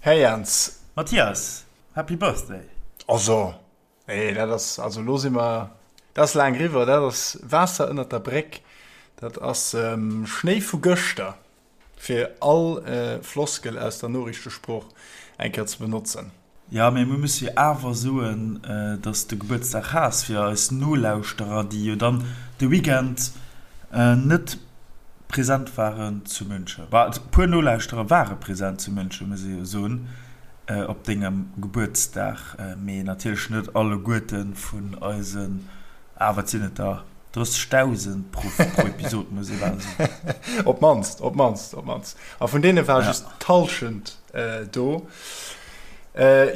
Här Jans. Mathias, Happy Birthday! Also, nee, dat ass, also elo si mer, dat ass laang eriwwer, dat ass Waasser ënnert der Bréck, dat ass Schnéi vu gëschter, fir all Floskel aus der Noriichtesprooch eng Kéier ze benotzen. Jo, mee mir musse jo awer soen, dass s de Gebuertsdag has, fir eis Nolauschterer, déi jo dann de Weekend net present waren zu München. Bah, e puer Nolauschterer ware present zu München, muss ee jo soen, op dengem Gebuertsdag, mee natierlech net alleguerte vun eisen, ah, wat sinn et der? 30.000 pro Episod, muss ee bal soen. Op d'mannst, op d'mannst, op d'mannst. A vun deene war just d'Hallschent do.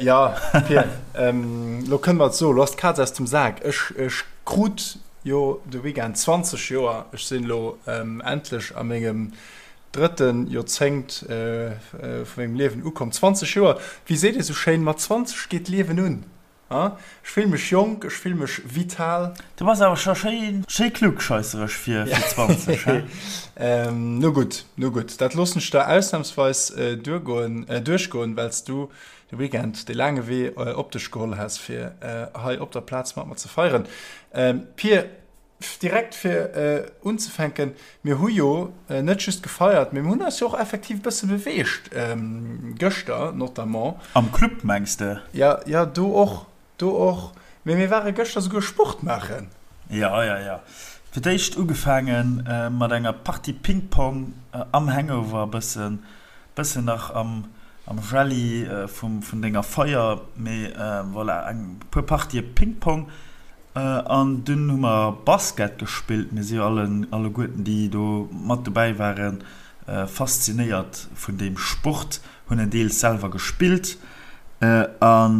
Jo, Pir, elo kënne mer et soen, elo ass d'Kaz aus dem Sak. Ech, ech krut jo de Weekend 20 Joer. Ech sinn elo endlech a mengem drëtte Joerzéngt vu mengem Liewen ukomm. 20 Joer, wéi seet ee sou schéin, mat 20 geet d'Liewen un. Ech fill mech jonk, ech fill mech vital. Du bass awer scho schéi schéi klugscheissereg fir 20, he? No gutt, no gutt, dat loossen ech der ausnamsweis duergoen, duerchgoen, well s du de Weekend dee laange Wee op dech geholl has, fir hei op der Plaz mat mer ze feieren. Pir, Direkt fir unzefänken, mir hu jo net just gefeiert, mee mir hunn eis jo och effektiv e bësse beweegt, gëschter notamment. Am Club mengs de? Jo, jo, do och, do och. Mee mir ware gëschter souguer Sport maachen. Jo, jo, jo. Fir d'éischt ugefaange mat enger Partie Ping-Pong am Hangover, e bëssen, bëssen nach am, am Jelli vum, vun denger Feier, mee voilà, eng puer Partië Ping-Pong. An dunn hu mer Basket gespillt. Mir si jo alleguerten, déi do mat dobäi waren, faszinéiert vun deem Sport, hunn en deels selwer gespillt. A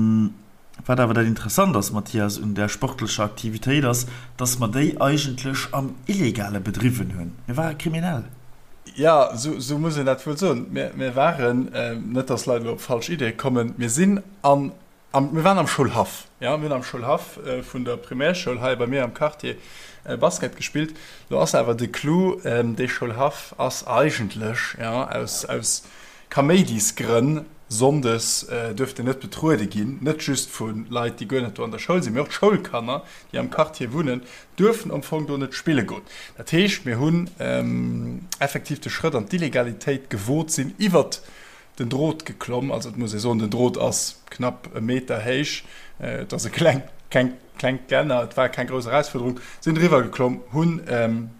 wat awer dat Interessant ass, Mathias, un där sportlecher Aktivitéit ass, dass mer déi eigentlech am Illegale bedriwwen hunn. Mir ware kriminell. Jo, esou muss een dat wuel soen. Mir waren, net dass Leit elo op falsch Ideeë kommen, mir sinn an Am, mir waren am Schoulhaff, jo, mir hunn am Schoulhaff vun der Primärschoul hei bei mir am Quartier Basket gespillt. Do ass awer de Clou, dee Schoulhaff ass eigentlech, jo, aus, aus Kaméidisgrënn sonndes duerft en net betruede ginn, net just vu Leit, déi guer net do an der Schoul sinn, mee och d'Schoulkanner, déi am Quartier wunnen, duerfen am Fong do net spille goen. Dat heescht, mir hunn effektiv de Schrëtt an d'Illegalitéit gewot, sinn iwwert den Drot geklomm. Also et muss ee soen, den Drot ass knapp e Meter héich, et ass e kleng, keng, klengt Gelänner, et war keng grouss Erausfuerderung, sinn driwwer geklomm, hunn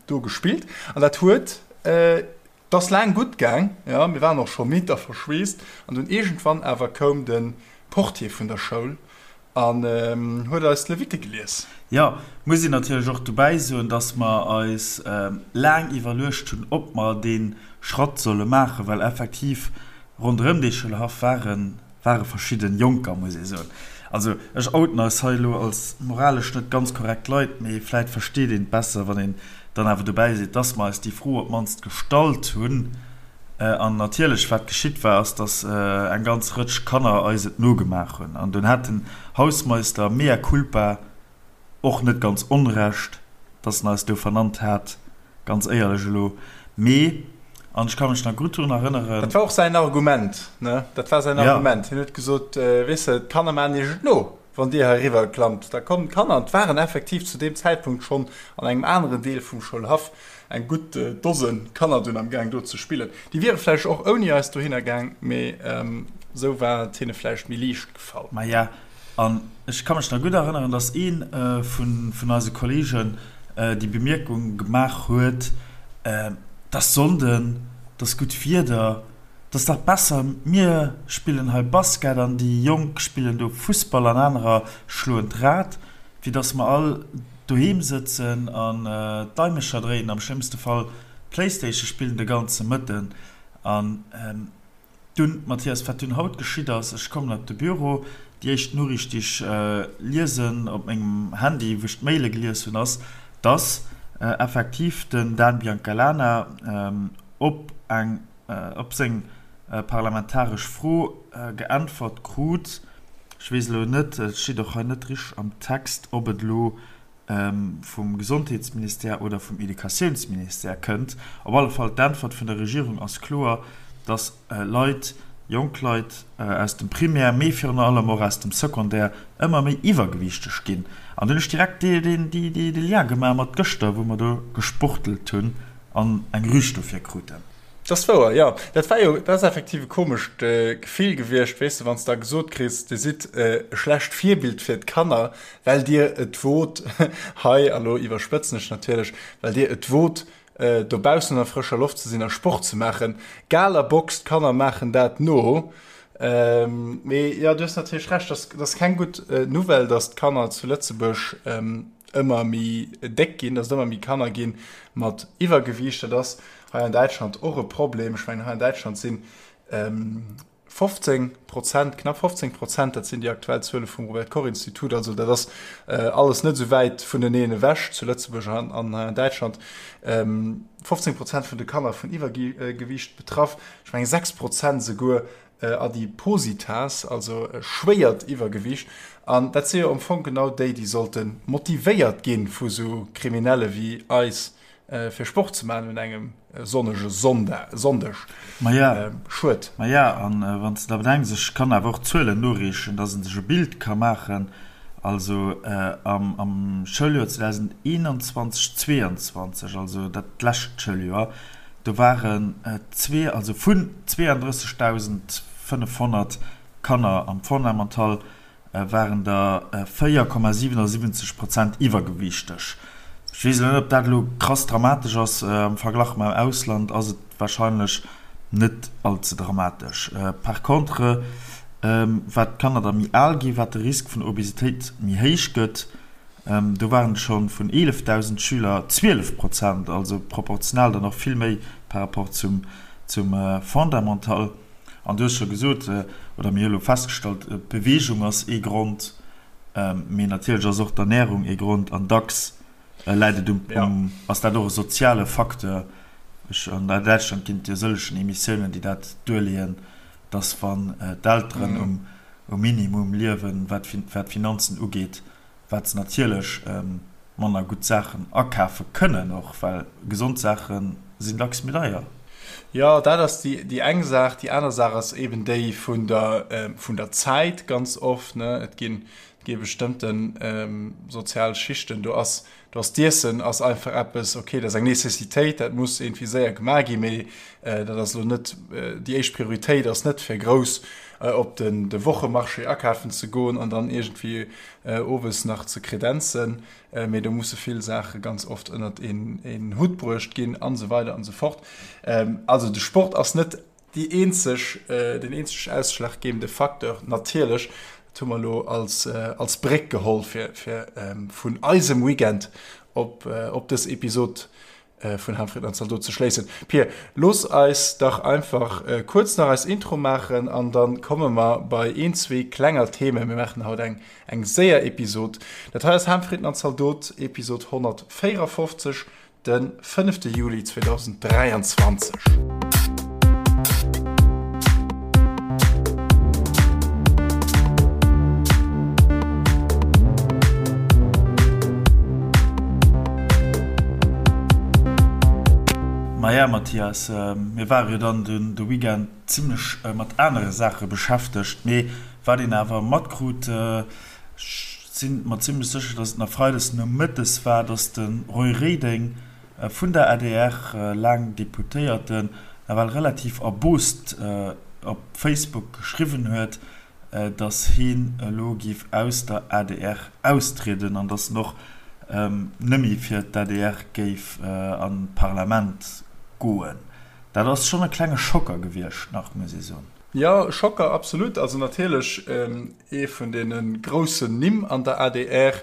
do gespillt an dat huet, et ass laang gutt gaang, jo, mir waren och scho midd a verschweesst an dunn iergendwann awer koum de Portier vun der Schoul An huet eis d'Levitte gelies. Jo, muss een natierlech och dobäi soen, dass mer eis laang iwwerluecht hunn, ob mer dee Schratt solle maachen, well effektiv ronderëm dee Schoulhaff ware ware verschidde Jonker, muss ee soen. Also ech outen eis hei elo als moralesch net ganz korrekt Leit, mee vläit versteet een et besser, wann een dann awer dobäi seet, dass mer eis déi Fro op d'mannst gestallt hunn. An natierlech, wat geschitt war, ass, dass eng ganz Rëtsch Kanner eis et nogemaach hunn. An dunn hat den Hausmeister, mea culpa, och net ganz Onrecht, dass en eis do vernannt hat, ganz éierlech elo. Mee, an ech ka mech nach gutt drun erënneren. Dat war och säin Argument, ne? Dat war säin Argument. Hien huet gesot, Weess de, d'Kanner maachen iech et no. Wann Dir hei eriwwer klammt, da kommen d'Kanner. An et waren effektiv zu deem Zäitpunkt schonn an engem aneren Deel vum Schoulhaff eng gutt Dose Kanner dunn am Gaang do ze spillen. Déi wiere vläicht och ouni eis dohinner gaang, mee esou war et hinne vläicht méi liicht gefall. Maja, an ech ka mech nach gutt erënneren, dass ee vun eise Kolleegen déi Bemierkung gemaach huet, Et ass Sonnden, et ass gutt Wieder, 't ass dach besser mir spillen hei Basket an déi Jonk spillen do Fussball an anerer schloen d'Rad, wéi dass mer all doheem sëtzen an d'Daimecher dréinen, am schlëmmste Fall Playstation spillen de ganze Mëtten. An dunn, Mathias, wat dunn haut geschitt ass, ech kommen op de Büro, déi éischt Noriicht déi ech liesen op mengem Handy, wou ech d'Maile gelies hunn, ass, dass effektiv den Dan Biancalana op eng op seng parlamentaresch Fro geäntwert krut. Ech weess elo net, et steet och hei net richteg am Text, ob et elo vum Gesondheetsministère oder vum Educatiounsministère kënnt. Op alle Fall, d'Äntwert vun der Regierung ass kloer, dass Leit, jonk Leit aus dem Primaire, mee virun allem och aus dem Secondaire ëmmer méi iwwergewiichteg ginn. An do hunn ech direkt de Lien gemaach mat gëschter, wou mer do gesportelt hunn an eng Rüg dofir kruten. Dat ass wouer, jo. Dat war jo, dat ass effektiv e komescht Gefill gewiescht, weess de, wann s de da gesot kriss, Dir sidd e schlecht Virbild fir d'Kanner, well Dir et wot, hei, a lo iwwerspëtzen ech natierlech, well Dir et wot, dobaussen an der frëscher Loft ze sinn a Sport ze maachen. Gala Box, d'Kanner maachen dat no. Mee jo, du hues natierlech Recht, dat ass keng gutt Nouvelle, datt d'Kanner zu Lëtzebuerg ëmmer méi déck ginn, datt et ëmmer méi Kanner gi mat Iwwergewiicht. Dat ass hei an Däitschland och e Problem. Ech mengen, hei an Däitschland sinn 15 Prozent, knapp 15 Prozent, dat sinn déi aktuell Zuele vum Robert Koch Institut, also dat ass alles net esou wäit vuneneen ewech zu Lëtzebuerg an hei an Däitschland, 15 Prozent vun de Kanner vun Iwwergewiicht betraff, ech mengen 6 Prozent esouguer Adipositas, also schwéiert Iwwergewiicht. An dat si jo am Fong genau déi, déi sollte motivéiert gi vu sou Kriminelle wéi eis, fir Sport ze maachen un engem sonnege Sonndeg. Maja, schued. Maja, an wann s de da bedenks, ech kann awer och Zuelen noreechen, dass e sech e Bild ka maachen, also am Schouljoer 2021, 22, also dat lescht Schouljoer, do waren zwee, also vun 32.500 Kanner am Fondamental waren der 4,77 Prozent iwwergewiichteg. Ech weess elo net, ob dat elo krass dramatesch ass. Am Verglach mam Ausland ass et warscheinlech net all ze dramatesch. Par contre, wat d'Kanner da méi al ginn, wat de Risk vun Obesitéit méi héich gëtt. Do waren et scho vun 11.000 Schüler 12 Prozent, also proportional dann och vill méi par rapport zum Fondamental. An du hues scho gesot, oder mir hu elo festgestallt, d'Beweegung ass ee Grond, mee natierlech ass och d'Ernärung ee Grond an dacks läit et um, ass dat och e soziale Facteur. Ech, an Däitschland ginn et jo sëllegen Emissiounen, déi dat duerleeën, dass wann d'Elteren um Minimum liewen, wat d'Finanzen ugeet, wat se natierlech manner gutt Saachen akafe kënnen och, well gesond Saache sinn dacks méi deier. Jo, dat ass déi eng Saach. Déi aner Saach ass eben déi vun der, vun der Zäit ganz oft, ne. Et ginn, et gi bestëmmte sozial Schichten, do ass, do ass d'Iessen ass einfach eppes, okay, dat ass eng Nécessitéit, dat muss iergendwéi séier gemaach ginn, mee dat ass elo net, déi éischt Prioritéit ass net fir grouss op den, de Wochemarché akafen ze goen an dann iergendwéi owes nach ze kredenzen, mee do musse vill Saache ganz oft ënnert een Hutt bruecht ginn an esou weider an esou fort. Also de Sport ass net déi eenzeg, den eenzeg ausschlaggebende Facteur natierlech. Dat hu mer elo als, als Bréck geholl fir, fir vun eisem Weekend op, op dës Episod vun Hanfred an Zaldot ze schléissen. Pir, looss eis dach einfach kuerz nach eis Intro maachen an dann komme mer bei een, zwee klenger Themen. Mir maachen haut eng eng séier Episod. Dat hei ass Hanfred an Zaldot, Episod 154, de fënnefte Juli 2023. Maja Mathias, mir ware jo dann de Weekend zimlech mat anere Saache beschäftegt, mee wat een awer matkrut, ech si mer zimlech sécher, datt et nach freides nomëttes war, datt de Roy Reding vun der adr, laang Deputéierten, nawell relativ erbost op Facebook geschriwwen huet, datt heen elo géif aus der adr austrieden an datt en och nëmme fir d'ADR géif an d'Parlament goen. Dat ass schonn e klenge Schocker gewiescht nach, muss ee soen. Jo, Schocker, absolut. Also natierlech ee vun deene groussen Nimm an der adr,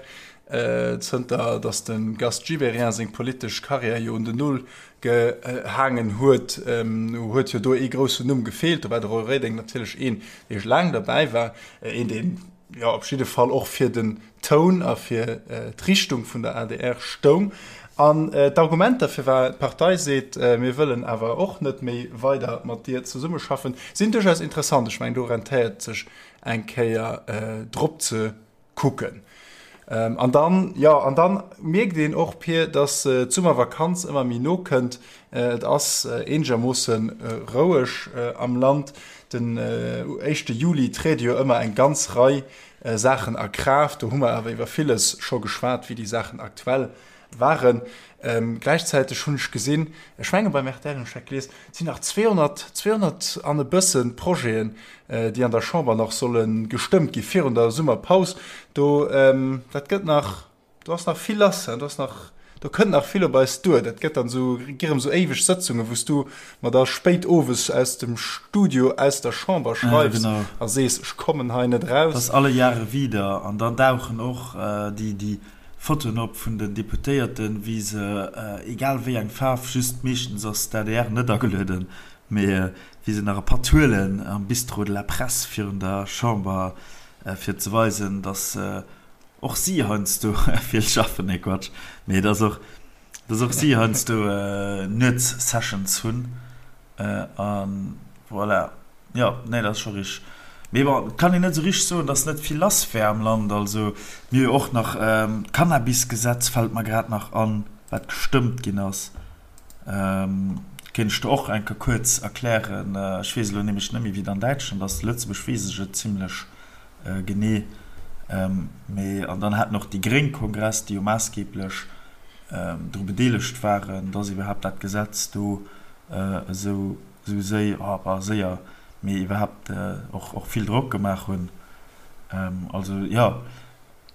zënter datt de Gast Gibéryen seng politesch Karriär jo un den Nol gehaangen huet, huet jo do ee groussen Numm gefeelt. Do war de Roy Reding natierlech een, dee laang derbäi war, een, deen jo op jidde Fall och fir den Toun a fir d'Richtung vun der adr stoung. An d'Argumenter, firwat d'Partei seet, mir wëllen awer och net méi weider mat dir zesummeschaffen, sinn duerchaus interessant. Ech mengen, do rentéiert et sech eng Kéier drop ze kucken. An dann, jo, an dann mierkt een och, Pir, dass d'Summervakanz ëmmer méi no kënnt. Et ass eenegermoosse roueg am Land. Den éischte Juli triede jo ëmmer eng ganz Rei Saachen a Kraaft. Do hu mer awer iwwer villes scho geschwat, wéi déi Saachen aktuell waren. Gläichzäiteg hunn ech gesinn, ech menge beim rtl hunn ech dat gelies, et sinn nach 200, 200 an e bësse Projeten, déi an der Chamber nach solle gestëmmt gi virun der Summerpaus. Do, dat gëtt nach, do ass nach vill lass, do ass nach, do kënnt nach vill op eis duer. Dat gëtt dann esou, gi rëm esou éiweg Sëtzungen, wou s du mer da spéit owes aus dem Studio aus der Chamber schreifs a sees, ech kommen hei net eraus. Dat ass alle Jahre wieder. An dann dauchen och déi, déi Fotoen op vun den Deputéierten, wéi se, egal wéi eng Faarf, just meeschtens ass d'ADR net agelueden, mee wéi se nach e Patt huelen am Bistrot de la Presse virun der Chamber, fir ze weisen, datt och si heiansdo vill schaffen, nee Quatsch, mee datt och, datt och si heiansdo Nuetssessions hunn. A voilà. Jo, nee, dat ass scho richteg. Mee bon, et kann een net esou richteg soen, datt net vill lass wär am Land. Also mir hu jo och nach d'Cannabisgesetz, fält mer grad nach an, wat gestëmmt ginn ass. Kéint ech der och eng Kéier kuerz erklären. Ech weess elo nämlech net méi, wéi et an Däitschland ass. Zu Lëtzebuerg weess ech et zimlech genee. Mee an dann haten och déi Gréng Kongress, déi jo maassgeeblech dru bedeelegt waren, datt iwwerhaapt dat Gesetz do esou séi, oh, séier, mee iwwerhaapt och vill Drock gemaach hunn. Also jo,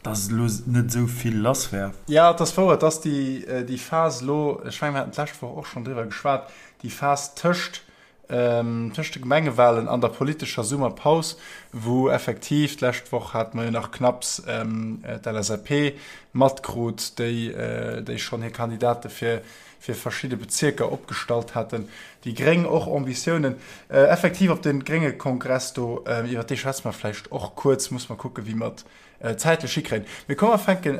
datt elo net esou vill lass wär. Jo, et ass wouer, et ass déi Phas elo, ech mengen, mir haten d'lescht Woch och schonn driwwer geschwat, déi Phas tëscht tëscht de Gemengewalen an der politescher Summerpaus, wou effektiv, d'lescht Woch hate mer jo nach knapps d'LSAP matkrut, déi déi schonn hir Kandidate fir fir verschidde Bezierker opgestallt haten, déi Gréng och Ambitiounen. Effektiv op de grénge Kongress do, iwwer dee schwätze mer vläicht och kuerz, muss mer kucke wéi mer et zäitlech hikréien. Mee komm mer fänke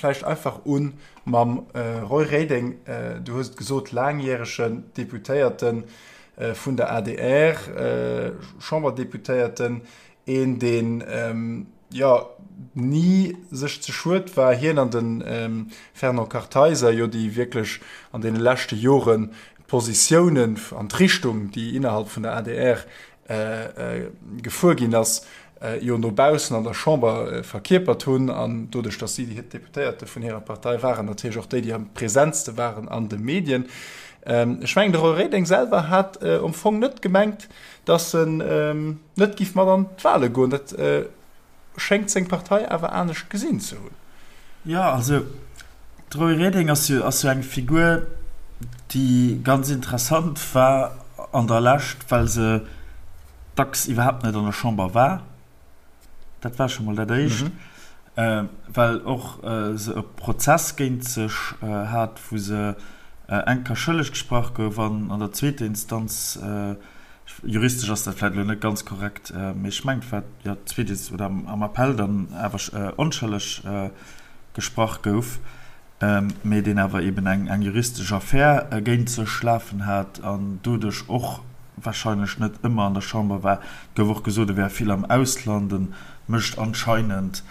vläicht einfach u mam Roy Reding. Du hues et gesot, laangjäregen Deputéierte vun der adr, Chamberdeputéierten, een deen jo ni sech ze schued war, hien an de Fernand Kartheiser jo, déi wierklech an deene leschte Joren d'Positiounen an d'Richtung, déi innerhalb vun der adr gefuer ginn ass, jo no baussen an der Chamber verkierpert hunn an doduerch, datt si déi Deputéierte vun hirer Partei waren, natierlech och déi, déi am presentste waren an de Medien. Ech mengen, de Roy Reding selwer hat am Fong net gemengt, datt en net géif mat an d'Wale goen. Dat schéngt seng Partei awer anescht gesinn ze hunn. Jo, also de Roy Reding ass jo ass jo eng Figur, déi ganz interessant war an der Lescht, well se dacks iwwerhaapt net an der Chamber war. Dat war scho mol dat Éischt. Well och se e Prozess géint sech hat, wou se eng Kéier schëlleg gesprach gouf an an der zweeter Instanz, Juristesch ass dat vläit elo net ganz korrekt, mee ech mengen, et war jo d'zweet oder am Appell dann awer onschëlleg gesprach gouf, mee deen awer eben eng juristesch Affär géint sech lafen hat an doduerch och warscheinlech net ëmmer an der Chamber war. Et gouf och gesot, e wär vill am Ausland, e mécht anscheinend,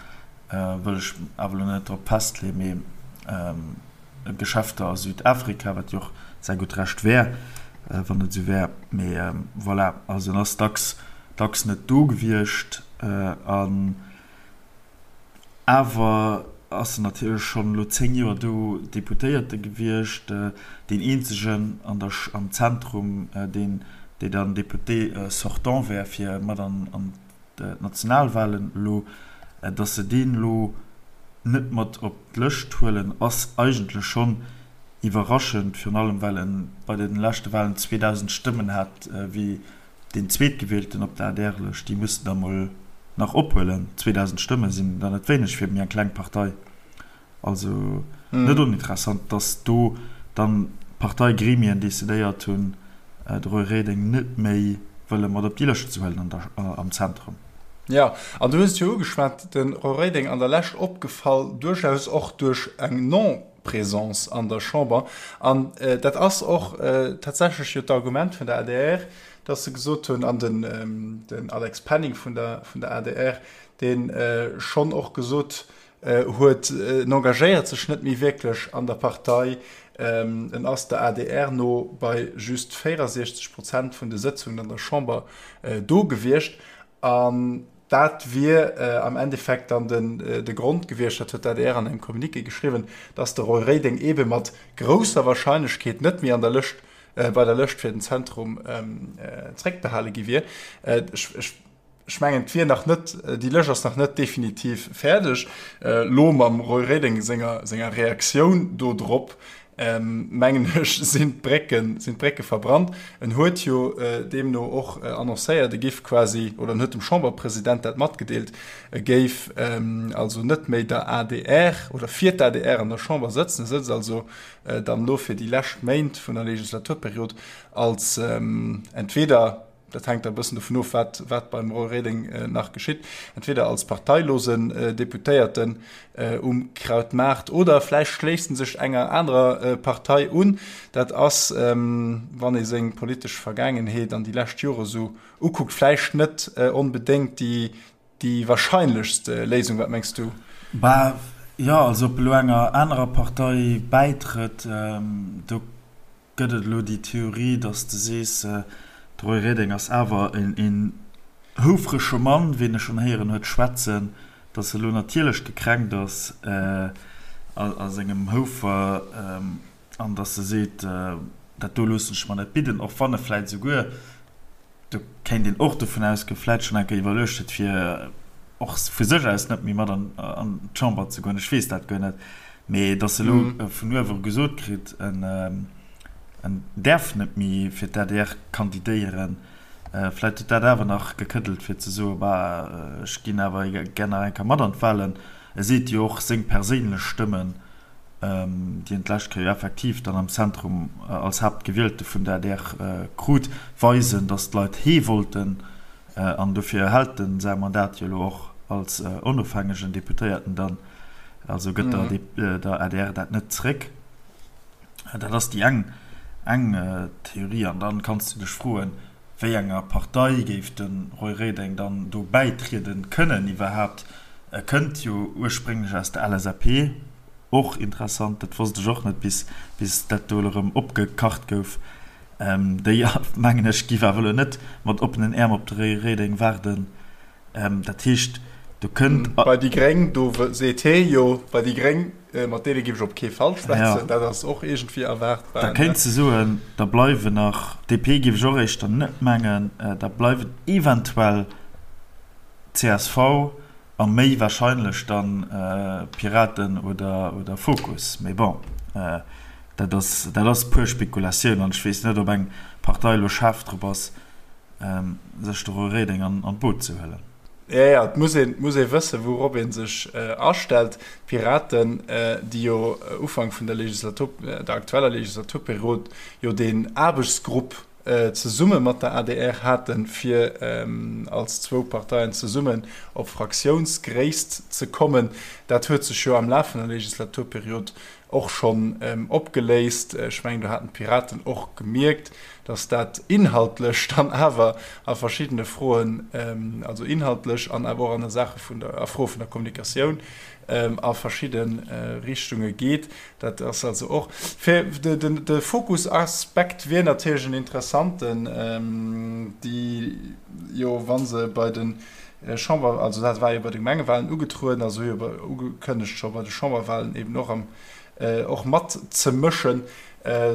wëll ech awer elo net drop festleeën, mee Geschäfter a Südafrika, wat jo och säi gutt Recht wär, wann et esou wär. Mee voilà, also en ass dacks, dacks net do gewiescht. An awer ass en natierlech schonn elo 10 Joer do Deputéierte gewiescht, deen eenzegen an der, am Zentrum, deen, dee dann Député sortant wär, fir mat an d'Nationalwahlen elo, datt se deen elo net mat op d'Lëscht huelen, ass eigentlech schonn iwwerraschend, virun allem well e bei de leschte Wahlen 2.000 Stëmmen hat wéi deen Zweetgewielten op der ADR-Lëscht. Déi muss en da mol nach ophuelen. 2.000 Stëmme sinn der net wéineg fir méi eng kleng Partei. Also net oninteressant, datt do dann d'Parteigremien decidéiert hunn, de Roy Reding net méi wëlle mat op déi Lëscht ze huelen am Zentrum. Jo, an du hues et jo ugeschwat, de Roy Reding an der Lescht opgefall, duerchaus och duerch eng Non-Présence an der Chamber. An dat ass och tatsächlech jo d'Argument vun der adr, datt se gesot hunn, an den Alex Penning vun der adr, dee schonn och gesot. huet, en engagéiert sech net méi wierklech an der Partei. En ass der adr no bei just 64 Prozent vun de Sëtzungen an der Chamber do gewiescht. An dat wier am Endeffekt dann de Grond gewiescht, dat huet d'ADR an engem Communiqué geschriwwen, datt de Roy Reding eebe mat grousser Warscheinlechkeet net méi an der Lëscht, bei der Lëscht fir den Zentrum zréckbehale gi wier. Ech mengen, et wier nach net, déi Lëscht ass nach net definitiv fäerdeg. Elo mam Roy Reding senger senger Reaktioun do drop, mengen ech, sinn d'Brécken, sinn d'Brécke verbrannt. En huet jo deemno och annoncéiert, e géif quasi, oder en huet dem Chamberpresident dat matgedeelt, e géif also net méi der adr oder fir d'ADR an der Chamber sëtzen. E sëtzt also dann elo fir déi lescht Méint vun der Legislaturperiod als entweder, Dat hänkt da e bëssen dovun of, wat, wat beim Roy Reding nach geschitt, entweder als parteilosen Deputéierten um Krautmaart oder vläicht schléisst en sech enger anerer Partei un. Dat ass, wann ee seng politesch Vergaangenheet an déi lescht Jore sou ukuckt, vläicht net onbedéngt déi, déi warscheinlechst Léisung. Wat mengs du? Bah, jo, also ob elo enger anerer Partei bäitrëtt, do Gëtt et elo déi Theorie, datt s de sees, de Roy Reding ass awer een houfrege Mann, ween e schonn héieren huet schwätzen, datt e lo natierlech gekränkt ass a sengem Houfer an datt e seet, dat do loossen ech mer net bidden, och wann e vläit esouguer Do kéint een och dovun ausgoen, vläit schonn eng Kéier iwwerluecht huet, fir och vu sech aus net méi mat an d'Chamber ze goen. Ech weess dat guer net. Mee datt e elo vun uewe gesot kritt, en däerf net méi fir d'ADR kandidéieren, vläit huet dat awer nach gekëddelt, fir ze soen, Bah, ech ginn awer gär nach eng Kéier mat an d'Wahlen. E seet jo och, seng perséinlech Stëmmen déi en d'lescht Kéier jo effektiv dann am Zentrum als Haaptgewielte vun der adr krut, weisen, datt d'Leit hee wollten. An dofir erhält en säi Mandat jo elo och als onofhängegen Deputéierten dann. Also gëtt der adr dat net zréck. Dat ass déi eng eng Theorie. An dann kanns du dech froen, wéi enger Partei géif de Roy Reding dann do bäitrieden kënnen iwwerhaapt? E kënnt jo ursprénglech aus der LSAP. Och interessant, dat wosst ech och net bis bis dat do elo erëm opgekacht gouf. Déi, mengen ech, giff awer elo net mat oppenen Äerm op de Roy Reding waarden. Dat heescht, do kënnt. Bei déi Gréng, do seet hee jo, bei déi Gréng, mat deene giff ech op kee Fall schwätzen. Dat ass och iergendwéi erwaartbar. Da kéints de soen, da bleiwen nach, DP giff ech och éischter net mengen, da bleiwen eventuell csv a méi warscheinlech dann Piraten oder Fokus. Mee bon, dat ass, dat ass puer Spekulatioun an ech weess net, ob eng Partei elo schaarf drop ass, sech de Roy Reding an d'Boot ze huelen. Jo, jo, et muss een, muss ee wëssen, wourop ee sech astellt. D'Piraten, déi jo Ufank vun der Legislatur, der aktueller Legislaturperiod jo deen Aarbechtsgrupp zesumme mat der adr haten, fir als zwou Parteien zesummen op Fraktiounsgréisst ze kommen. Dat huet sech jo am Laf vun der Legislaturperiod och schonn opgeléist. Ech mengen, do haten d'Piraten och gemierkt, datt dat inhaltlech dann awer a verschiddene Froen, also inhaltlech an awer och an der Sache vun der, a Froe vun der Kommunikatioun a verschidde Richtunge geet. Dat ass also och fir de Fokusaspekt wier natierlech en interessanten, déi jo, wa se bei de Chamber, also dat war jo bei de Gemengewahlen ugetrueden, also hu jo ugekënnegt scho bei de Chamberwahlen eben och am och matzemëschen.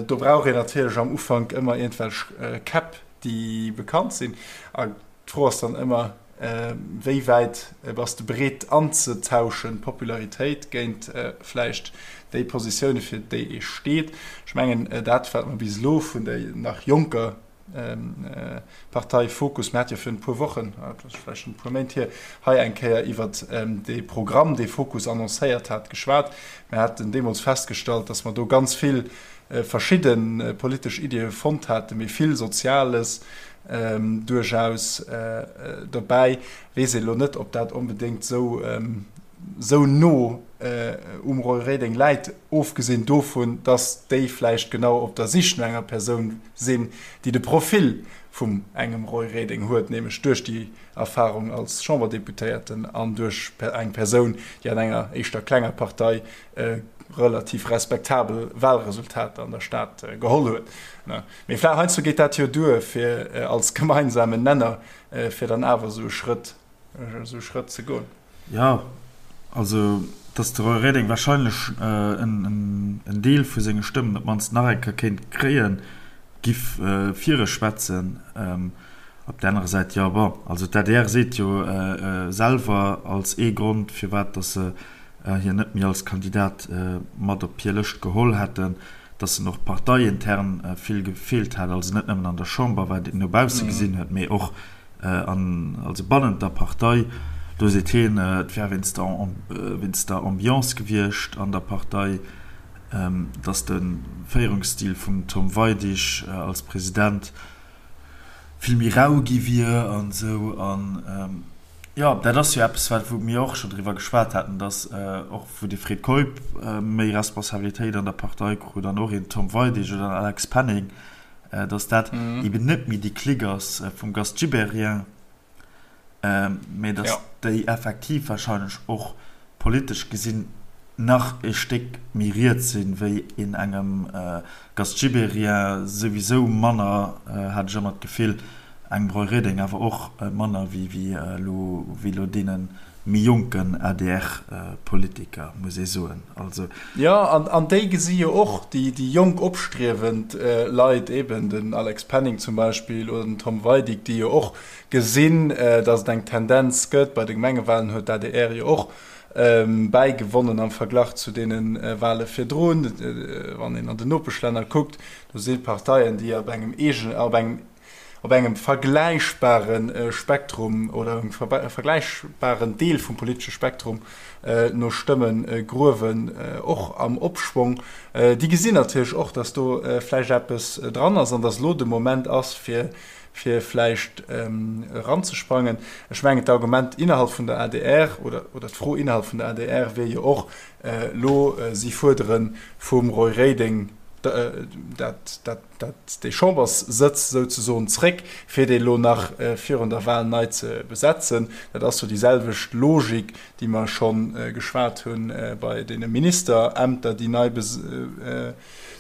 Do brauch een natierlech am Ufank ëmmer iergendwelch Käpp, déi bekannt sinn. A d'Fro ass dann ëmmer, Wéi wäit bass de bereet anzetauschen, Popularitéit géint vläicht déi Positioune fir déi ee steet? Ech mengen dat wat mer bis elo vun der nach jonker Partei Fokus, mir hate jo virun e puer Wochen, dat ass vläicht schonn e puer Méint hier, hei eng Kéier iwwert dee Programm, dee Fokus annoncéiert hat, geschwat. Mir haten deemools festgestallt, datt mer do ganz vill verschidde politesch Iddie fonnt haten, mee vill Soziales duerchaus dobäi. Weess een elo net, ob dat onbedéngt esou. esou no um Roy Reding läit, ofgesinn dovun, datt déi vläicht genau op der Sich no enger Persoun sinn, déi de Profil vum engem Roy Reding huet, nämlech duerch déi Erfahrung als Chamberdeputéierten an duerch eng Persoun, déi an enger éischter klenger Partei relativ respektabel Wahlresultater an der Stad geholl huet. Mee vläicht heiansdo geet dat jo duer, fir als gemeinsamen Nenner, fir dann awer esou e Schrëtt, esou e Schrëtt ze goen. Jo, also datt de Roy Reding wahrscheinlech en Deel vu senge Stëmmen op d'mannst nach eng Kéier kéint kréien, giff fir e schwätzen. Op där anerer Säit, jo, bon, also d'ADR seet jo selwer als ee Grond, firwat datt se hien net méi als Kandidat mat op hir Lëscht geholl hätten, datt en och parteiintern vill gefeelt hätt, also net nëmmen an der Chamber, wat een no bausse gesinn huet, mee och an also bannent der Partei. Do seet hien, et wär wéinst der wéinst der Ambiance gewiescht an der Partei, datt de Féierungsstil vum Tom Weidig als President vill méi rau gi wier an esou. An jo, dat ass jo eppes, wat wou mir och scho driwwer geschwat haten, datt och wou de Fred Keup méi Responsabilitéit an der Partei krut an och een Tom Weidig oder en Alex Penning, datt dat eben net méi déi Clique ass vum Gast Gibéryen, mä datt déi effektiv wahrscheinlech och politesch gesinn nach e Stéck méi riets sinn, wéi een engem Gast Gibéryen, souwisou manner, hat ech ëmmer d'Gefill, engem Roy Reding awer och manner wéi elo deene méi jonken ADR-Politiker, muss ee soen. Also. Jo, an déi gesi jo och déi jonk opstriewend Leit, eben den Alex Penning zum Beispill oder den Tom Weidig, déi jo och gesinn, datt et eng Tendenz gëtt. Bei de Gemengewalen huet d'ADR jo och bäigewonnen am Verglach zu deene Wale virdrun. Wann een an den Nopeschlänner kuckt, do si Parteien, déi op engem eegenen, op engem op engem vergläichbare Spektrum oder engem vergläichbaren Deel vum politesche Spektrum no Stëmme gruewen, och am Opschwong. Déi gesinn natierlech och, datt do vläicht eppes dran ass an datt elo de Moment ass, fir fir vläicht eranzesprangen. Ech mengen, d'Argument innerhalb vun der adr oder oder d'Fro innerhalb vun der adr wier jo och elo, si fuerdere vum Roy Reding dat, dat, dat, dee Chamberssëtz souzesoen zréck, fir dee elo nach virun der Wahl nei ze besetzen. Dat ass jo déi selwecht Logik, déi mer scho geschwat hu bei deene Ministerämter, déi nei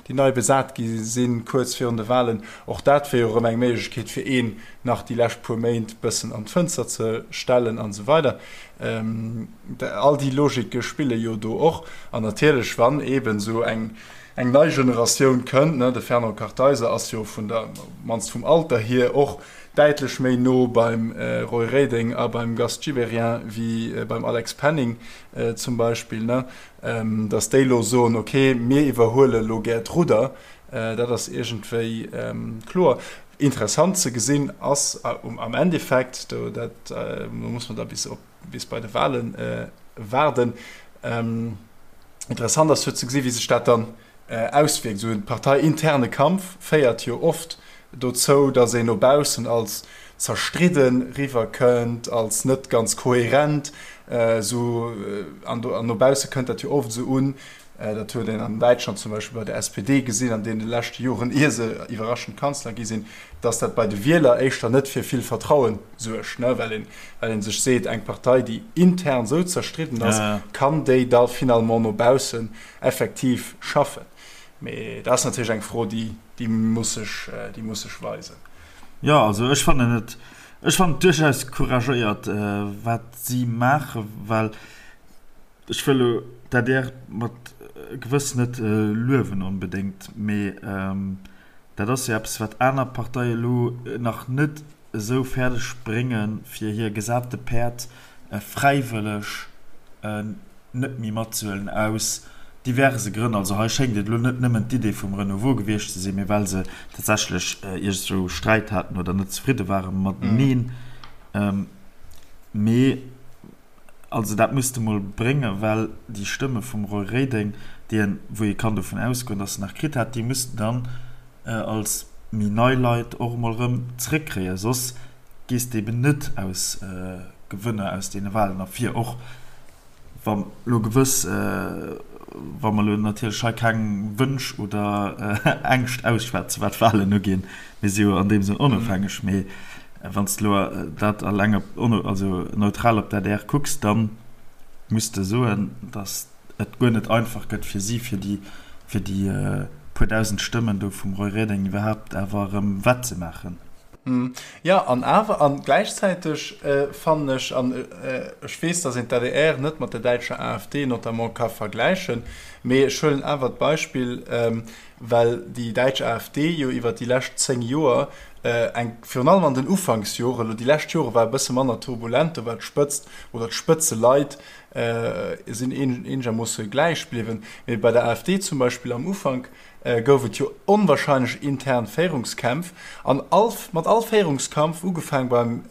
déi nei besat gi sinn, kuerz virun de Wahlen. Och dat wier jo erëm eng Méiglechkeet, fir een nach déi lescht puer Méint bëssen an d'Fënster ze stellen an esou weider. All déi Logike spille jo do och. An natierlech, wann eeben esou eng eng nei Generatioun kënnt, ne, de Fernand Kartheiser ass jo vun der, mannst vum Alter hier, och däitlech méi no beim Roy Reding a beim Gast Gibéryen wéi beim Alex Penning zum Beispill, ne, datt déi elo soen, ok, mir iwwerhuele elo gär d'Rudder, dat ass iergendwéi kloer. Interessant ze gesinn ass am Endeffekt, do dat muss man da bis op bis bei de Wahlen waarden, interessant ass jo ze gesi wéi sech dat dann auswierkt. Esou e parteiinterne Kampf féiert jo oft dozou, datt een no baussen als zerstridde riwwer kënnt, als net ganz kohärent, esou an no bausse kënnt dat jo oft esou un, dat huet een an Däitschland zum Beispill bei der SPD gesinn an deene leschte Joren, ier se iwwerraschend Kanzler gi sinn, datt dat bei de Wieler éischter net fir vill Vertraue suergt, well een, well ee sech seet, eng Partei, déi intern esou zerstridden ass, kann déi da finalement no baussen effektiv schaffen? Mee dat ass natierlech eng Fro, déi, déi muss sech, déi muss sech weisen. Jo, also ech fannen et, ech fannen et duerchaus couragéiert, wat si maachen, well ech wëll elo d'ADR mat gewëss net luewen onbedéngt, mee dat ass jo eppes, wat aner Parteie elo nach net esou fäerdeg bréngen, fir hir gesate Päerd fräiwëlleg net méi matzehuelen aus diverse Grënn. Also hei schéngt et elo net nëmmen d'Idee vum Renouveau gewiescht ze sinn, mee well se tatsächlech iergendwou Sträit haten oder net zefridde ware mateneen. Mee also dat muss de mol bréngen, well déi Stëmme vum Roy Reding, déi en, wou ee kann dovun ausgoen, datt en nach kritt hat, déi muss de dann als méi nei Leit och emol erëm zréckkréien, soss gees de eben net aus Gewënner aus deene Wahlen ervir, och. Wa lo gewëss, wa mer lo natierlech hei keng Wënsch oder Ängscht ausschwätzen, wat d'Wahlen uginn, mir si jo an deem Sënn onofhängeg, mee wann s de lo dat eleng op, also neutral op d'ADR kucks, da muss de soen, datt et guer net einfach gëtt fir si, fir déi, fir déi puer dausend Stëmmen do vum Roy Reding iwwerhaapt awer erëm wettzemaachen. Jo, an awer, an gläichzäiteg fannen ech, an ech weess, datt een d'ADR net mat der däitscher AfD notamment ka vergläichen, mee ech huelen awer d'Beispill, well déi däitsch AfD jo iwwer déi lescht 10 Joer eng, virun allem an den Ufanksjoren, elo déi lescht Jore war e bësse manner turbulent, do war d'Spëtzt oder d'Spëtzeleit sinn eenegermoosse gläich bliwwen, mee bei der AfD zum Beispill am Ufank gouf et jo onwahrscheinlech intern Féierungskämpf an all mat all Féierungskampf, ugefaang beim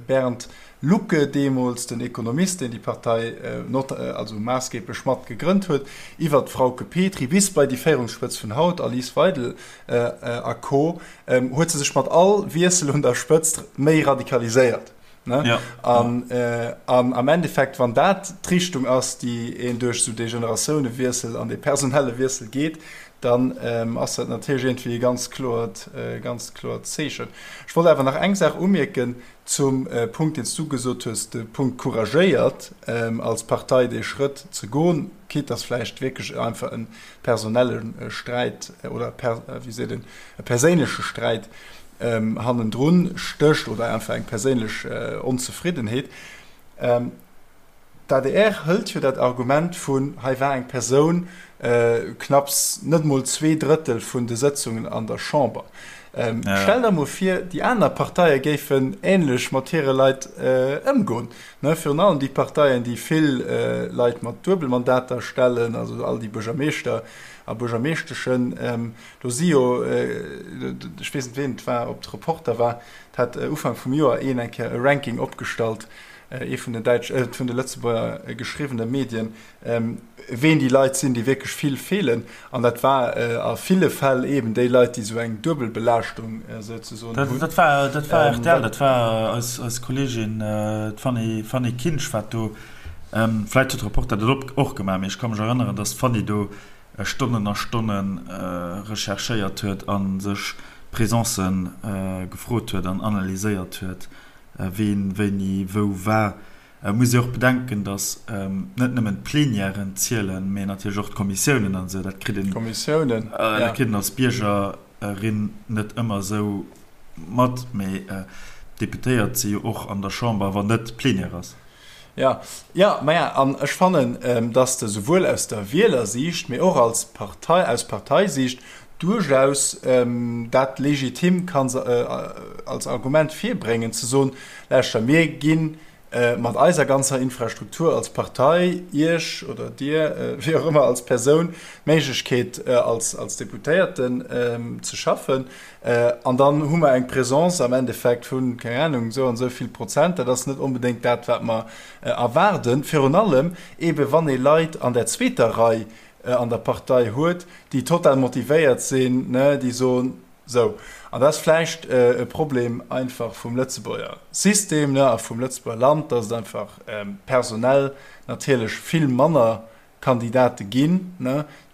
Bernd Lucke deemools, den Ekonomist, deen déi Partei not also maassgeblech mat gegrënnt huet, iwwert d'Frauke Petry bis bei déi Féierungsspëtz vun haut, Alice Weidel a Co, huet se sech mat all Wiessel un der Spëtzt méi radikaliséiert. Ne? Ja. An, äh, an am Endeffekt, wann dat d'Richtung ass, déi een duerch esou dee Generatiounewiessel an dee personelle Wiessel geet, dann ähm, ass dat natierlech iergendwéi e ganz kloert, äh, ganz kloert Zeechen. Ech wollt awer nach eng Saach umierken zum äh, Punkt, deen s du gesot hues, de Punkt couragéiert ähm, als Partei dee Schrëtt ze goen, quitte dass vläicht wierklech einfach e personelle Sträit oder per, wéi seet een, e perséinleche Sträit hannendrun stécht oder einfach eng perséinlech Onzefriddenheet. D'ADR hëlt jo dat Argument vun, hei war eng Persoun knapps net mol 2/3 vun de Sëtzungen an der Chamber. Stell der mol vir, déi aner Parteie géifen änlech mat hire Leit ëmgoen, virun allem déi Parteien, déi vill Leit mat Duebelmandater stellen, also all déi Buergermeeschter a Buergermeeschteschen. Do si jo, ech weess net ween et war, ob et Reporter war, et hat Ufank vum Joer een eng Kéier e Ranking opgestallt, ee vun den däitsch, vun de Lëtzebuerger geschriwwene Medien, ween déi Leit sinn, déi wierklech vill feelen. An dat war a ville Fäll eeben déi Leit, déi esou eng Duebelbelaaschtung souzesoen hunn. Dat war, dat war rtl, dat war eis, eis Kolleegin, d'Fanny, Fanny Kinsch wat do, vläicht huet Reporter dat och gemaach, mee ech ka mech erënneren, datt d'Fanny do Stonnen a Stonne recherchéiert huet a sech Presencë gefrot huet an analyséiert huet, ween wéini wou war. Et muss ee och bedenken, datt net nëmmen d'Plenièren zielen, mee natierlech och d'Kommissiounen an esou. Dat kritt een, dat kritt een als Biergerin net ëmmer esou mat, mee d'Deputéiert si jo och an der Chamber, wann net Plenière ass. Jo, jo, maja, an ech fannen, dass de souwuel aus der Wielersiicht, mee och als Partei, aus Parteisiicht duerchaus dat legitim kanns als Argument virbréngen, ze soen, Lauschter, mir gi mat eiser ganzer Infrastruktur als Partei Iech oder Dir, wéi och ëmmer, als Persoun d'Méiglechkeet, als Deputéierten ze schaffen. An dann hu mer eng Présence am Endeffekt vun, keng Ahnung, esou an esou vill Prozent. Dat ass net onbedéngt dat, wat mer erwaarden. Virun allem eebe wann ee Leit an der zweeter Rei an der Partei huet, déi total motivéiert sinn, déi soen, sou. An dat ass vläicht e Problem einfach vum Lëtzebuerger System a vum Lëtzebuerger Land, dass et einfach personell natierlech vill manner Kandidate ginn,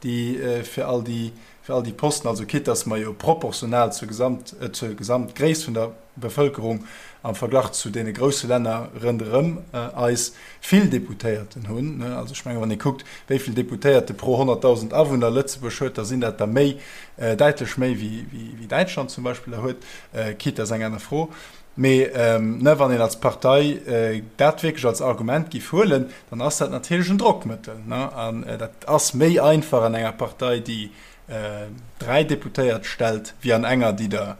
déi fir all déi, fir all déi Posten, also quitte dass mer jo proportional zur Gesamt, zur Gesamtgréisst vun der Bevëlkerung am Verglach zu deene grousse Länner rënderëm eis vill Deputéierten hunn. Also ech menge wann ee kuckt, wéi vill Deputéierte pro 100.000 Awunner Lëtzebuerg huet, da sinn dat der méi, däitlech méi wéi, wéi Däitschland zum Beispill der huet, quitte dat ass eng aner Fro. Mee wann een als Partei dat wierklech als Argument giff huelen, dann ass dat natierlech en Drockmëttel. An dat ass méi einfach an enger Partei, déi 3 Deputéiert stellt, wéi an enger, déi der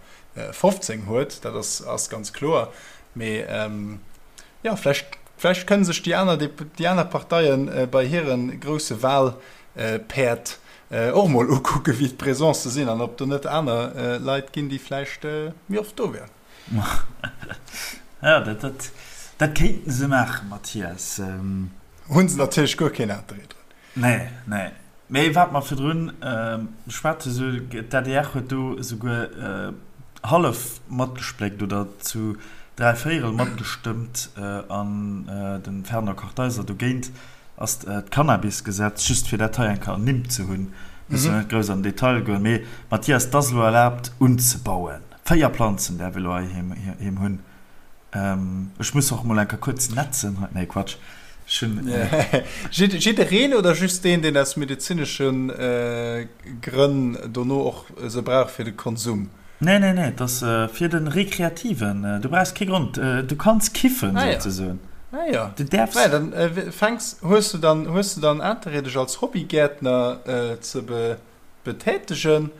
15 huet. Dat ass ganz kloer. Mee jo, vläicht, vläicht kënne sech déi aner, déi aner Parteie bei hire grousse Wahlpäerd och mol ukucken, wéi d'Presencë sinn an ob do net aner Leit ginn, déi vläicht méi oft do wären. Ja, dat, dat, dat kéinten se maachen, Mathias. Hunn se natierlech guer keen Interêt drun. Nee, nee. Mee wat mer virdrun beschwat hu, sou, d'ADR huet do esouguer hallef matgespléckt oder zu dräivéierel matgestëmmt an de Fernand Kartheiser dogéint. Ass d'Cannabisgesetz, just fir dat hei eng Kéier ernimmt ze hunn, musse mer net grouss an den Detail goen, mee Mathias, et ass elo erlaabt unzebauen. 4 Planzen däerf ee elo heiheem hunn. Ech muss och mol eng Kéier kuerz netzen hei, nee Quatsch, ech hunn. Jiddereen oder just deen, deen aus medezinesche Grënn dono och se brauch fir de Konsum? Nee, nee, nee, et ass fir de Rekreativen. Du brauchs kee Grond, du kanns kiffen, souzesoen. Ah jo. Du däerfs. Naja, dann fänks, hues du dann, hues du dann Interêt dech als Hobbygäertner ze betätegen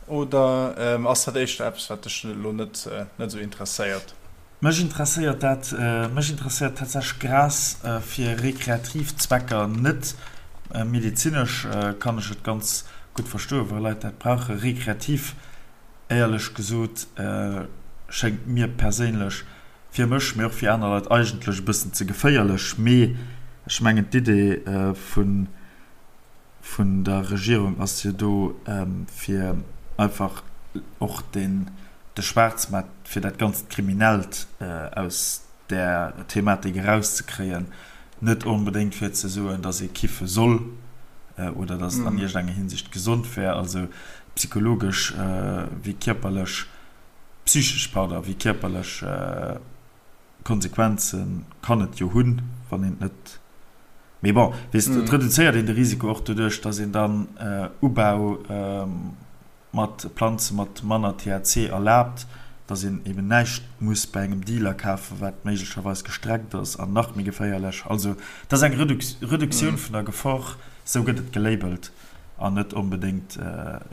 oder ass dat éischter eppes wat dech elo net net esou interesséiert? Mech interesséiert dat, mech interesséiert tatsächlech Gras fir rekreativ Zwecker net. Medezinesch kann ech et ganz gutt verstoen, wa Leit dat brauchen. Rekreativ, éierlech gesot, schéngt mir perséinlech, fir mech, mee och fir aner Leit, eigentlech e bëssen ze geféierlech. Mee ech mengen d'Idee vun vun der Regierung ass jo do, fir einfach och den de Schwaarzmaart, fir dat ganzt Kriminellt aus där Thematik erauszekréien, net onbedéngt fir ze soen, datt ee kiffe soll oder datt et an iergendenger Hinsicht gesond wär, also psychologesch wéi kierperlech, psychesch, pardon, wéi kierperlech Konsequenze kann et jo hunn, wann een et net. Mee bon, weess de, et reduzéiert een de Risiko och doduerch, datt een dann Ubau mat Planze mat manner THC erlaabt, datt een eben näischt muss bei engem Dealer kafen, wat méiglecherweis gestreckt ass an nach méi geféierlech. Also et ass eng Reduktioun vun der Gefor, esou gëtt et gelabelt, an net onbedéngt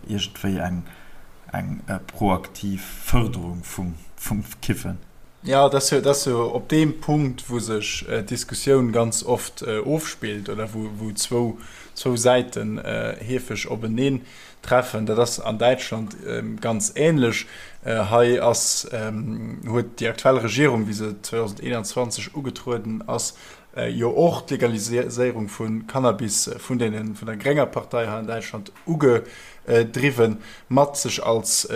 iergendwéi eng proaktiv Fërderung vum Kiffen. Jo, et ass jo, et ass jo op deem Punkt, wou sech d'Diskussioun ganz oft ofspillt oder wou, wou zwou, zwou Säiten heefeg openeen treffen. Dat ass an Däitschland ganz ähnlech. Hei ass, huet déi aktuell Regierung, wéi se 2021 ugetrueden ass, jo och d'Legaliséierung vu Cannabis vun deenen, vun der grénger Partei hei an Däitschland ugedriwwen, mat sech als,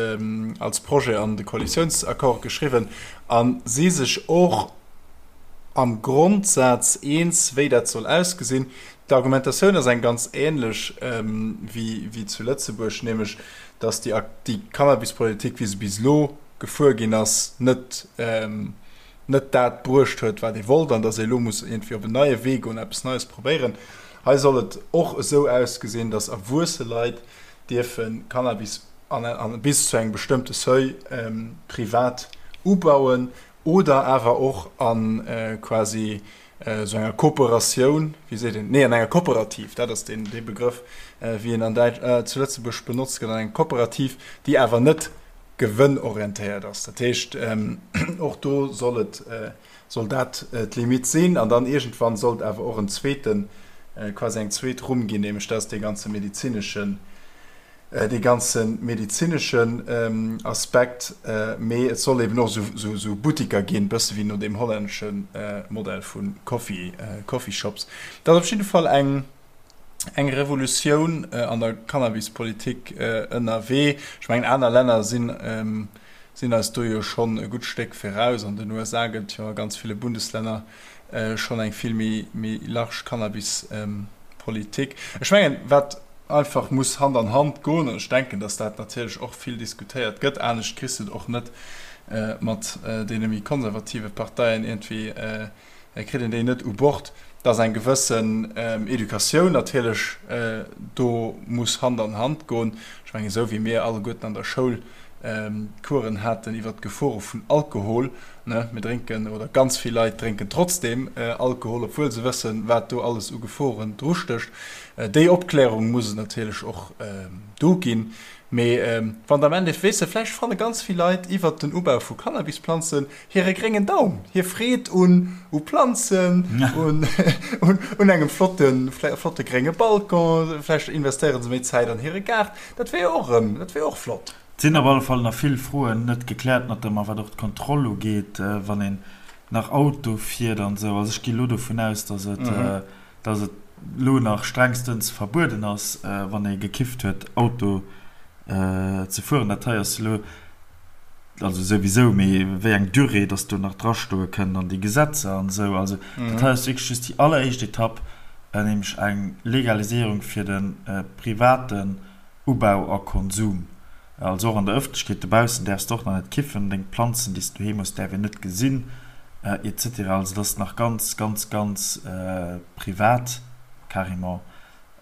als Projet an de Koalitiounsaccord geschriwwen a si sech och am Grondsaz eens, wéi dat soll ausgesinn. D'Argumentatioun ass eng ganz ähnlech wéi, wéi zu Lëtzebuerg, nämlech datt déi, déi Cannabispolitik, wéi se bis elo gefuer ginn ass, net, net dat bruecht huet, wat ee wollt, an datt ee elo muss iergendwéi op en neie Wee goen, eppes Neies probéieren. Hei soll et och esou ausgesinn, datt erwuesse Leit dierfe Cannabis an, an bis zu engem bestëmmte Seuil privat ubauen oder awer och a quasi esou enger Kooperatioun, wéi seet een, nee an enger Kooperativ, dat ass deen, dee Begrëff, wéi en an Däitsch, zu Lëtzebuerg benotzt gëtt, an enger Kooperativ, déi awer net gewënnorientéiert ass. Dat heescht, och do soll et, soll dat d'Limite sinn. An dann iergendwann sollt awer och en zweeten, quasi eng zweet Rumm ginn, nämlech dat ass dee ganze medezineschen, dee ganze medezineschen Aspekt. Mee et soll eben och esou Buttiker ginn, bësse wéi no deem hollännesche Modell vu Coffee, Coffeeshops. Dat ass op jidde Fall eng. eng Revolutioun an der Cannabispolitik ënnerwee. Ech mengen, aner Länner sinn, sinn eis do jo schonn e gutt Stéck viraus. An den USA gëtt jo a ganz ville Bundeslänner schonn eng vill méi, méi large Cannabispolitik. Ech mengen, wat einfach muss Hand an Hand goen, an ech denken, datt dat natierlech och vill diskutéiert gëtt, anescht kriss de et och net mat deene méi konservative Parteien iergendwéi kritt een déi net u Bord, dass eng gewëssen Educatioun natierlech do muss Hand an Hand goen. Ech mengen, esou wéi mir alleguerten an der Schoul Coursen haten iwwert d'Gefore vun Alkohol, ne, mir drénken, oder ganz vill Leit drénken trotzdeem Alkohol, obwuel se wëssen, wat do alles u Geforen drustécht. Déi Opklärung muss et natierlech och do ginn. Mee wann der am Endeffekt, weess de, vläicht fanne ganz vill Leit iwwert den Ubau vu Cannabisplanzen hire gréngen Daum, hir Freed un u Planzen, un un engem flotte flotte grénge Balcon, vläicht investéiere se méi Zäit an hire Gaart, dat wier jo och erëm, dat wier och flott. Et sinn op alle Fall nach vill Froen net gekläert, notamment wat och d'Kontroll ugeet, wann een nach Auto fiert an esou. Also ech gi elo dovun aus, datt et datt et elo nach strengstens verbueden ass, wann ee gekifft huet, Auto ze fueren. Dat hei ass elo, also souwisou, mee wéi eng Durée datt do nach drastoe kënnt an déi Gesetzer an esou. Also dat hei ass wierklech just déi alleréischt Etapp. nämlech eng Legaliséierung fir de privaten Ubau a Konsum. Also och an der Ëffentlechkeet dobaussen däerfs de och nach net kiffen, deng Planzen, déi s de doheem hues, däerf een net gesinn, et cetera. Also dat ass nach ganz, ganz, ganz privat carrément.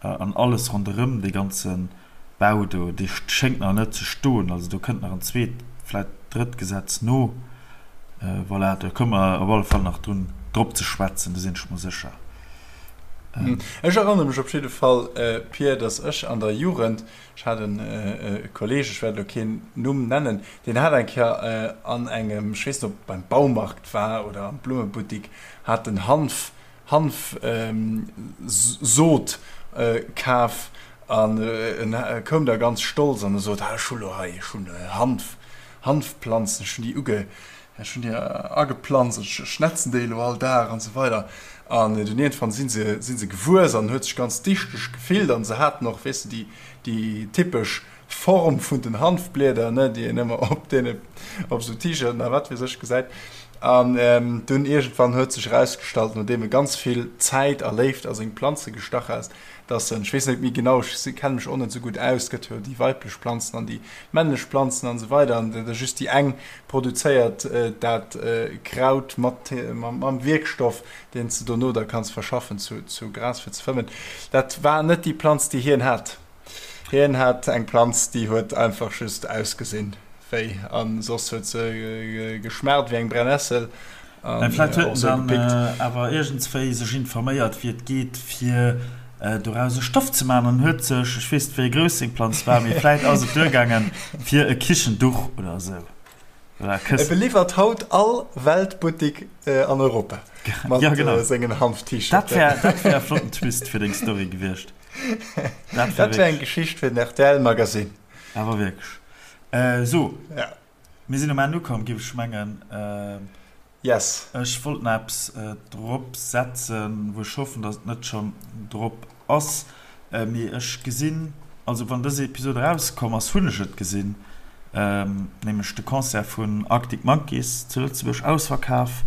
An alles ronderëm dee ganze Bau do, dee schéngt nach net ze stoen. Also do kënnt nach en zweet, vläicht drëtt Gesetz no. Voilà, do komme mer op alle Fall nach drun, drop ze schwätzen, do sinn ech mer sécher. Ech erënnere mech op jidde Fall, Pir, datt ech an der Jugend, ech hat e Kolleeg, ech wäert elo keen Numm nennen, deen hat eng Kéier an engem, ech weess net, ob et beim Baumarkt war oder am Blummebuttik, hat en Hanf, Hanfsot kaf an en koum da ganz stolz an e sot, Ah, ech hu lo hei, ech hunn Hanf, Hanfplanzen, ech hunn déi uge, ech hunn déi ageplanzt, ech schnetzen déi elo all Dag an esou weider. An dunn iergendwann si se, si se gewuess an en huet sech ganz dichteg gefillt an se haten och, weess de, déi, déi typesch Form vun den Hanfblieder, ne, déi een ëmmer op deene, op esou T-Shirten a wat weess ech gesäit. An dunn iergendwann huet sech erausgestallt, nodeem e ganz vill Zäit a Léift a seng Planze gestach hat, dass en, ech weess net méi genau, ech kenne mech och net esou gutt aus, et gëtt jo déi weiblech Planzen an déi männlech Planzen an esou weider, an da just déi eng produzéiert dat Kraut mat, mam Wierkstoff, deen s de dono da kanns verschaffen zu Gras fir ze fëmmen. Dat war net déi Planz, déi hien hat. Hien hat eng Planz, déi huet einfach just ausgesinn wéi, an soss huet se geschmaacht wéi eng Brennessel an Vläit huet en dann awer iergendswéi sech informéiert wéi et geet fir doraus e Stoff ze maachen an huet sech, ech weess net wéi grouss seng Planz war, mee vläit ass et duergaangen fir e Kichenduch oder esou oder e Këssen. E beliwwert haut all Weltbuttik an Europa mat sengen Hanf-T-Shirten. Dat wär, dat wär e flotten Twist fir deng Story gewiescht. Dat wär eng Geschicht fir den RTL Magazine. Awer wierklech. Sou, mir sinn um Enn ukomm, géif ech mengen. Yes. Ech wollt nach eppes drop setzen, wou ech hoffen, datt et net schonn drop ass. Mee ech gesinn, also wann dës Episod erauskomm ass, hunn ech et gesinn, nämlech de Concert vun Arctic Monkeys zu Lëtzebuerg, ausverkaf,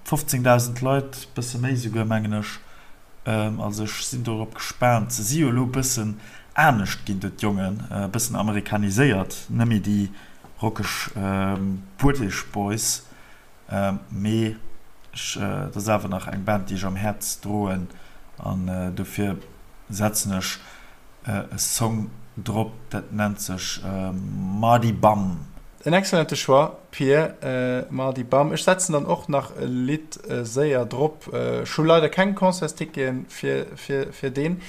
15.000 Leit, bësse méi souguer, mengen ech. Also ech sinn dorop gespaant. Se si jo elo e bëssen anescht ginn do d'Jongen, e bëssen amerikaniséiert, net méi déi rockeg British Boys, mee ech, et ass awer nach eng Band déi ech am Häerz droen an dofir setzen ech e Song drop, dat nennt sech Mardy Bum. En excellente Choix, Pir. Mardy Bum. Ech setzen dann och nach e Lidd séier drop. Ech hu leider keng Concertsticketen fir deen.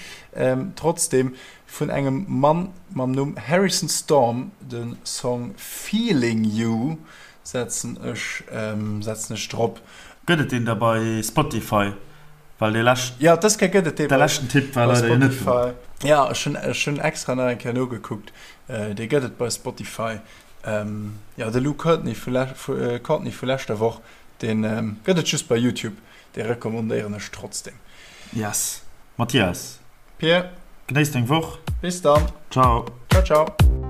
Trotzdem vun engem Mann mam Numm Harrison Storm de Song Feeling You setzen ech setzen ech drop. Gëtt et deen da bei Spotify? Well dee leschten, Ja, dës Kéier gëtt et dee bei leschten Tipp war leider jo net do. Spotify. Ja, ech hunn ech hunn extra nach eng Kéier nogekuckt. Dee gëtt et bei Spotify. Jo, de Luke Courtney vu Courtney vu leschter Woch, dee gëtt et just bei YouTube. Dee recommandéieren ech trotzdem. Yes. Mathias. Pir. Genéiss deng Woch. Bis dann. Ciao. Ciao, ciao.